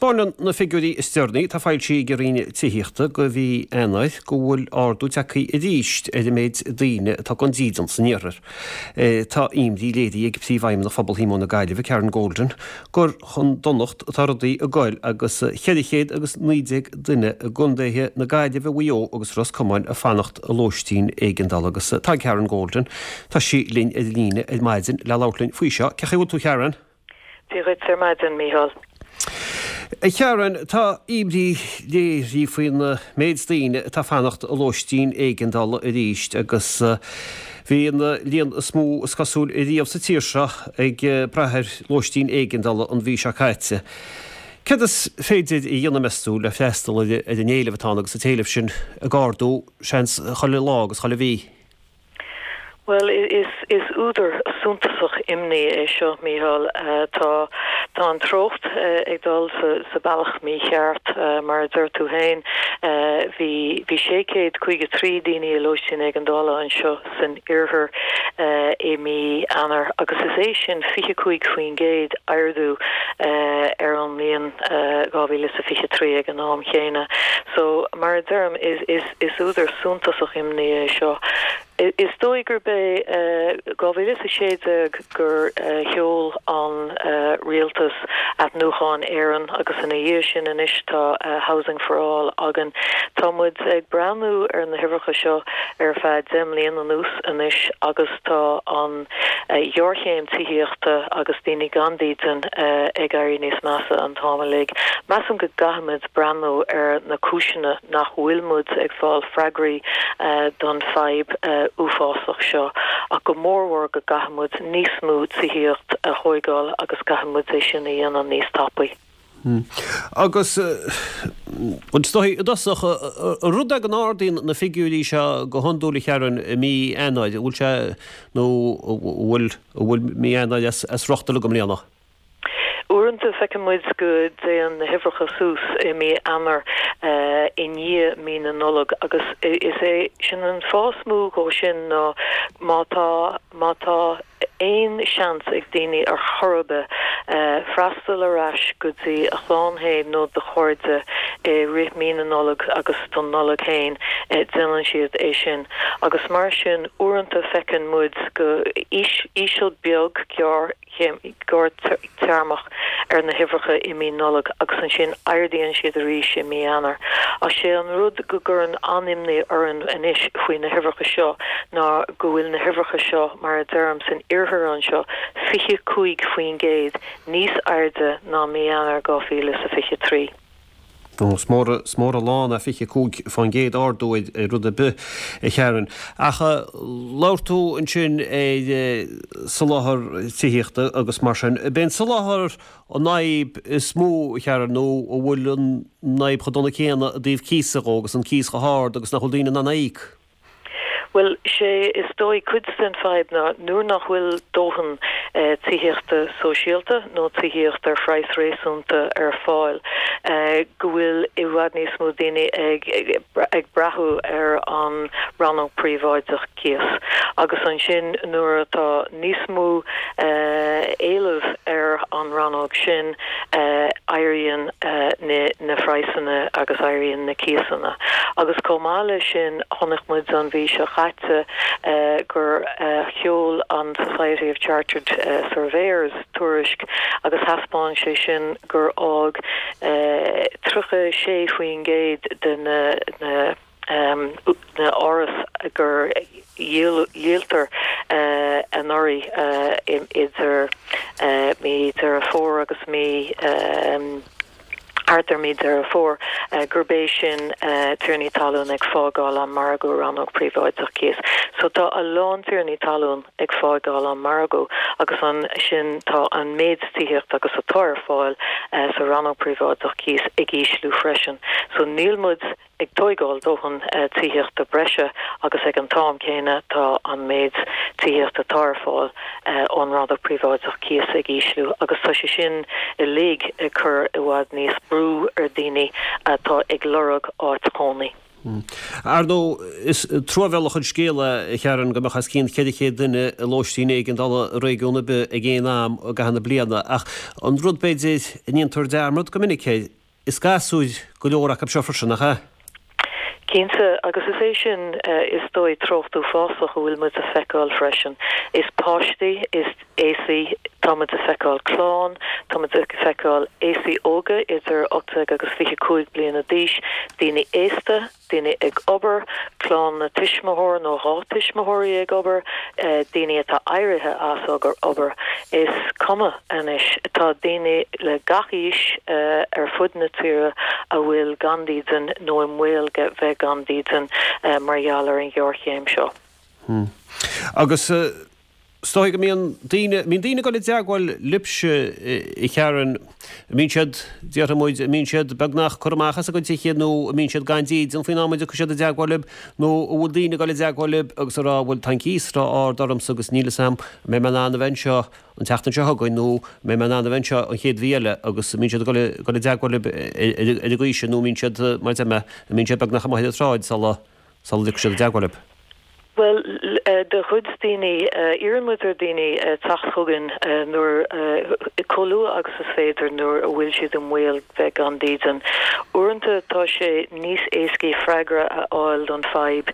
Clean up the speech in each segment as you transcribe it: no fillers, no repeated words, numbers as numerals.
Taispeánann na figiúirí is deireanaí atá foilsithe ag an Roinn Tithíochta do mhí Eanáir go bhfuil ardú tagtha arís ar an méid daoine atá gan dídean san iarthar. Tá imní léirithe ag Príomhfheidhmeannach Phobal Shíomóin na Gaillimhe, Karen Golden, gur chun donacht atá rudaí ag goil agus 419 duine i gcontaetha na Gaillimhe, Mhaigh Eo agus Ros Comáin ag fanacht i lóistín éigeandála agus tá Karen Golden, tá sí linn ar an líne ar maidin le labhairt linn faoi seo. Cén chaoi a bhfuil tú Karen? Dia dhuit ar maidin, Mícheál. A Karen, tá imní léirithe faoin méid daoine atá ag fanacht i lóistín éigeandála arís agus bhí an líon is mó is cosúil riamh sa tír seo ag brath ar lóistín éigeandála an mhí seo caite. Céard is féidir a dhéanamh, meas tú, le freastal ar an éileamh atá ann agus an t-éileamh sin ag ardú, seans, chuile lá agus chuile mhí? Bhuel, is údar suntasach imní é seo, Mícheál. Tá tá an treocht ag dul sa bealach mícheart. Mar a deir tú féin, bhí bhí 653 daoine i lóistín éigeandála anseo san iarthar i mí Eanáir agus is é sin 25% ardú ar an mbliain 2023 ag an am chéanna. So, mar a deirim, is Is údar suntasach imní é seo. Is dóigh gurb é 2016 gur sheol an rialtas Athnuachan Éireann agus ina dhiaidh sin anois tá Housing for All againn. Tá muid ag breathnú ar na huimhreacha seo ar feadh 10 mbliana anuas anois agus tá an ghéarchéim tithíochta agus daoine gan dídean ag éirí níos measa an t-am uilig. Measaim go gcaithfimid breathnú ar na cúiseanna nach bhfuil muid ag fáil freagraí don fadhb uafásach seo, ach go mórmhór go gcaithfidh muid níos mó tithíocht a thóigeáil agus caithfidh muid é sin a dhéanamh níos tapaí. Agus is dóigh i dtosach, an rud é go n-ardaíonn na figiúirí seo go hiondúil a Karen i mí Eanáir, an bhfuil sé nó an bhfuil an bhfuil mí Eanáir as riocht uilig i mbliana? Uaireanta feiceann muid go dtéann na huimhreacha suas i mí Eanáir i ndiaidh mí na Nollag agus is é sin an fáth is mó dhó sin ná má tá má tá aon seans ag daoine ar chor ar bith freastal ar ais go dtí a chlann féin nó do chairde i rith mí na Nollag agus don Nollaig féin déanann siad é sin agus mar sin uaireanta feiceann muid go íseal beag gearr gearrthéarmach ar na huimhreacha i mí Nollag agus ansin ardaíonn siad arís i mí Eanáir. Ach sé an rud go gcuireann an-imní orainn anois faoi na huimhreacha seo ná go bhfuil na huimhreacha seo, mar a deirim, san iarthar anseo, 25% níos airde ná mí Eanáir 2023. Is mór is mór an lán é 25% ardú ar rud ar bith, a Karen. Ach labhair tú ansin ar soláthar tithíochta agus mar sin. Ab é an soláthar an fhadhb is mó, a Karen, nó an bhfuil an fhadhb chomh dona céanna i dtaobh cíosa dhó agus an cíos chomh hard agus nach bhfuil daoine in ann é a íoc? Bhuel, sé is dóigh cuid den fadhb ná nuair nach bhfuil dóthain tithíochta sóisialta nó tithíocht ar phraghas réasúnta ar fáil, go bhfuil i bhfad níos mó daoine ag ag brath ar an rannóg príobháideach cíos. Agus ansin nuair atá níos mó éileamh ar an rannóg sin, éiríonn na praghsanna agus éiríonn na cíosanna. Agus chomh maith leis sin, chonaic muid an mhí seo chaite gur sheol an Society of Chartered Surveyors tuairisc agus thaispeáin sé sin gur fhág 36% de na na áras gur dhíoltar anuraidh idir mí Deireadh Fómhair agus mí thart ar mí Deireadh Fómhair, gurb é sin tiarnaí talún ag fágáil an margadh rannóg príobháideach cíos. So tá a lán tiarnaí talún ag fágáil an margadh agus ansin tá an méid tithíochta agus atá ar fáil sa rannóg príobháideach cíos ag ísliú freisin. So níl muid ag tóigeáil dóthain tithíochta breise agus ag an t-am céanna tá an méid tithíochta atá ar fáil ón rannóg príobháideach cíos ag ísliú agus tá sé sin uilig ag cur i bhfad níos brú ar daoine atá ag lorg áit chónaí. Ar ndóigh, is truamhéalach an scéal é, a Sharon, go mbeadh os cionn 400 duine i lóistín éigeandála i réigiún ar bith ag aon am i gcaitheamh na bliana, ach an rud, b'fhéidir, a ndéantar dearmad go minic air, is gasúir go leor acu seo freisin, nach ea? Cinnte, agus is é sin, is dóigh, treocht uafásach a bhfuil muid a feiceáil freisin. Is páistí, is aosaigh, tá muid a feiceáil clann, tá muid ag feiceáil aosaigh óga idir 18 agus 25 bliana d'aois, daoine aosta, daoine ag obair, clann tuismitheoir nó dhá tuismitheoirí ag obair, daoine atá éirithe as obair. Is cuma anois, tá daoine le gach aois ar fud na tíre a bhfuil gan dídean nó i mbaol bheith gan dídean mar gheall ar an ghéarchéim seo. Agus is dóigh go mbíonn daoine, mbíonn daoine ag dul i dteagmháil libhse, a Sharon, an mbíonn siad, déarfaidh muid, an mbíonn siad beagnach curtha amach as a gcuid tithe nó an mbíonn siad gan dídean faoin am a dtiocfaidh siad i dteagmháil libh nó an bhfuil daoine ag dul i dteagmháil libh agus ag rá bhuel tá an cíos ró-ard ormsa agus níl 'fhios a'm an mbeidh mé in ann a bheith anseo an tseachtain seo chugainn nó an mbeidh mé in ann a bheith anseo an chéad mhí eile agus an mbíonn siad ag dul i dteagmháil libh ar an gcaoi sin nó an mbíonn siad, mar a deir mé, an mbíonn siad beagnach amuigh ar an tsráid sula sula dtiocfaidh siad i dteagmháil libh. Bhuel, do chuid daoine, iarrann muid ar dhaoine teacht chugainn nuair, chomh luath agus is féidir nuair a bhfuil siad i mbaol bheith gan dídean. Uaireanta tá sé níos éascaí freagra a fháil don fadhb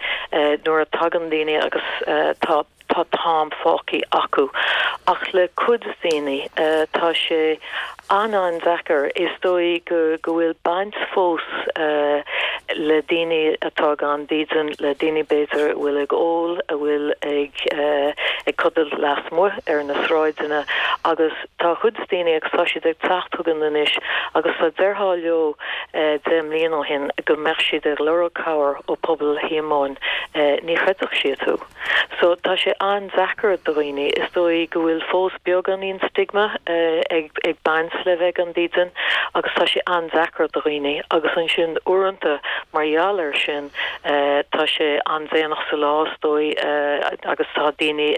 nuair a tagann daoine agus tá tá t-am fágtha acu. Ach le cuid daoine, tá sé an-an-deacair. Is dóigh go go bhfuil baint fós le daoine atá gan dídean, le daoine b'fhéidir a bhfuil ag ól, a bhfuil ag ag codladh lasmuigh ar na sráideanna agus tá cuid daoine agus tá siad ag teacht chugainn anois agus dá ndéarfá leo 10 mbliana ó shin go mbeadh siad ag lorg cabhair ó Pobal Shíomóin, ní chreidfeadh siad thú. So, tá sé an-deacair do dhaoine. Is dóigh go bhfuil fós beagáinín stigma ag ag baint le bheith gan dídean agus tá sé an-deacair do dhaoine agus ansin uaireanta mar gheall air sin tá sé an-déanach sa lá is dóigh agus tá daoine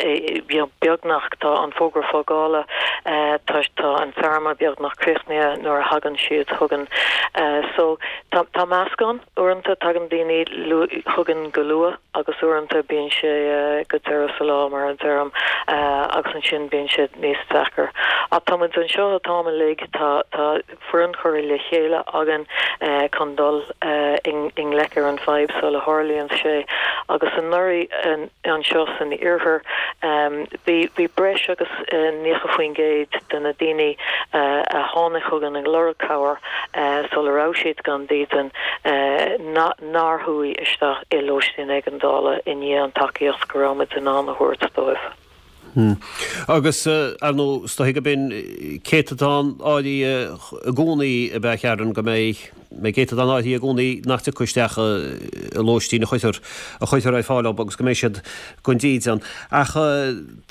you know beagnach tá an fógra fágála tá tá an téarma beagnach críochnaithe nuair a thagann siad chugainn. So, tá tá meascán. Uaireanta tagann daoine chugainn go luath agus uaireanta bíonn sé go deireadh sa lá mar a deirim agus ansin bíonn sé níos deacair. Ach tá muid anseo an t-am uilig, tá tá foireann curtha le chéile againn chun dul i ngleic ar an bhfadhb sula tharlaíonn sé agus anuraidh anseo san iarthar bhí bhí breis agus 90% de na daoine a tháinig chugainn ag lorg cabhair sula raibh siad gan dídean, nár chuaigh isteach i lóistín éigeandála i ndiaidh an tacaíocht go raibh muid in ann a thabhairt dóibh. Agus, ar ndóigh, is dóiche gurb in céatadán áirithe i gcónaí ab ea, a Sharon, go mbeidh céatadán áirithe i gcónaí nach dtiocfaidh isteach i lóistín a chuirtear a chuirtear ar fáil dóibh agus go mbeidh siad gan dídean. Ach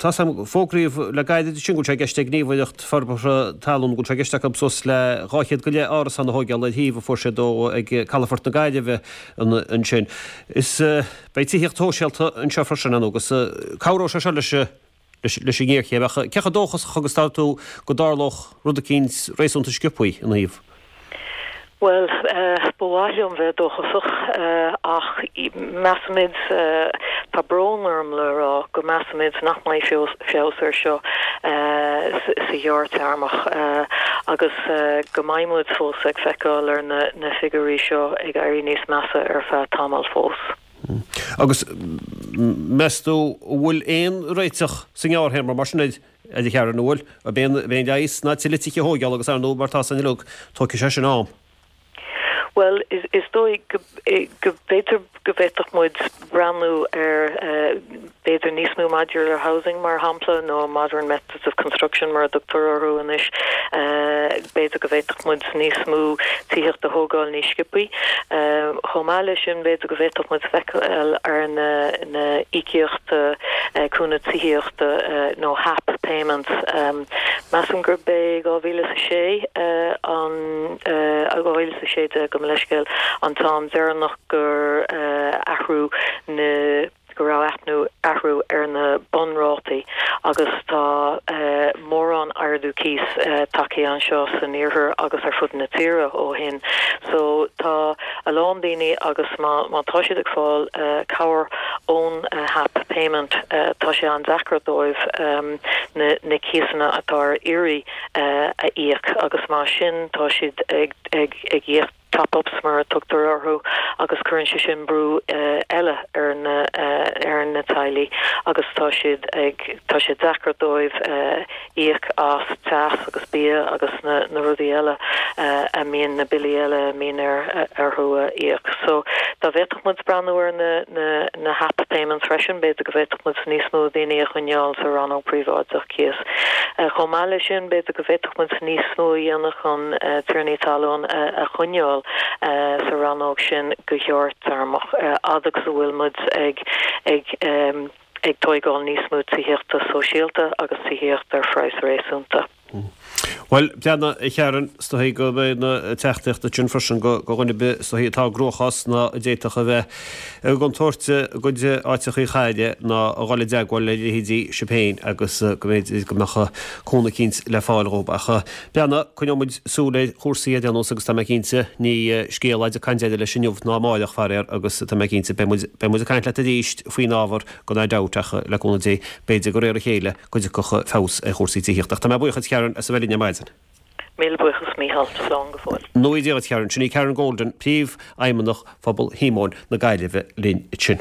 tá 's a'm, fógraíodh le gairid ansin go bhfuil sé i gceist ag Gníomhaireacht Forbartha Talún go bhfuil sé i gceist acu suas le 200 go leith árasán a thóigeáil ar shuíomh a fuair siad ó ag Calafort na Gaillimhe ansin. Is beidh tithíocht shóisialta anseo freisin ar ndóigh agus cabhróidh sé seo leis leis an ngéarchéim. Ach cé chomh dóchasach agus atá tú go dtarlódh rud eicínt réasúnta sciobthaí ina thaobh? Bhuel, ba mhaith liom bheith dóchasach, ach measaimid, tá brón orm le rá, go measaimid nach mbeidh feabhas air seo sa ghearrtéarmach agus go mbeidh muid fós ag feiceáil ar na figiúirí seo ag éirí níos measa ar feadh tamaill fós. Agus meas tú an bhfuil aon réiteach sa ngearrthéarma mar sin air? A Sharon, an bhfuil, ab é an leigheas ná tuilleadh tithe a thóigeáil agus ar ndóigh mar tá 's againn uilig, tógfaidh sé sin am. Bhuel, is dóigh go b'fhéidir go bhféadfadh muid breathnú ar b'fhéidir níos mó modular housing mar shampla nó modern methods of construction mar a dtugtar orthu anois. B'fhéidir go bhféadfadh muid níos mó tithíocht a thógáil níos sciobthaí. Chomh maith leis sin b'fhéidir go bhféadfadh muid feiceáil ar na na íocaíochta cúnamh tithíochta nó HAP payments. Measaim gurb é 2006 an 2016 gabh mo leithscéal an t-am deireanach gur athrú na go raibh athnú athrú ar na bunrátaí agus tá mórán ardú cíos tagtha anseo san iarthar agus ar fud na tíre ó shin. So tá. a lán daoine agus má má tá siad ag fáil cabhair ón HAP payment tá sé an-deacair dóibh na na cíosanna atá ar iarraidh a íoc agus mar sin tá siad ag ag ag íoc top-ups mar a tugtar orthu agus cuireann sé sin brú eile ar na ar na teaghlaigh agus tá siad ag tá sé deacair dóibh íoc as teas agus bia agus na na rudaí eile a mbíonn na billí eile a mbíonn ar orthu a íoc. So dá bhféadfadh muid breathnú ar na na na HAP payments freisin b'fhéidir go bhféadfadh muid níos mó daoine a choinneáil sa rannóg príobháideach cíos. Chomh maith leis sin b'fhéidir go bhféadfadh muid níos mó a dhéanamh chun tiarnaí talún a choinneáil sa rannóg sin go gearrthéarmach, fhad agus a bhfuil muid ag ag ag tóigeáil níos mó tithíochta sóisialta agus tithíochta ar phraghas réasúnta. Bhuel, breathnaigh, a Sharon, is dóigh go mbeidh na teachtaireachtaí sin freisin go dhuine ar bith is dóigh atá i gcruachás ná a d'fhéadfadh a bheith i gcontúirt a gcuid áiteachaí a chailleadh ná a dhul i dteagmháil le leithéidí sibh féin agus go mb'fhéidir go mbeadh cúnamh eicínt le fáil dhóibh. Ach breathnaigh, coinneoidh muid súil ar chúrsaí ar aon nós agus tá mé cinnte, ní scéal é ag caint deireadh leis inniu ná amáireach, faraor, agus tá mé cinnte, beidh muid, beidh muid ag caint leat arís faoin ábhar gan aon dabht ach le cúnamh Dé, b'fhéidir de réir a chéile go dtiocfadh feabhas ar chúrsaí tithíochta. Ach tá mé buíoch duit, Karen, as a bheith linn ar maidin. Míle buíochas, Mícheál. Slán go fóill. Go ngnóthaí Dia dhuit, Karen. Sin í Karen Golden, Príomhfheidhmeannach Phobal Shíomóin na Gaillimhe linn ansin.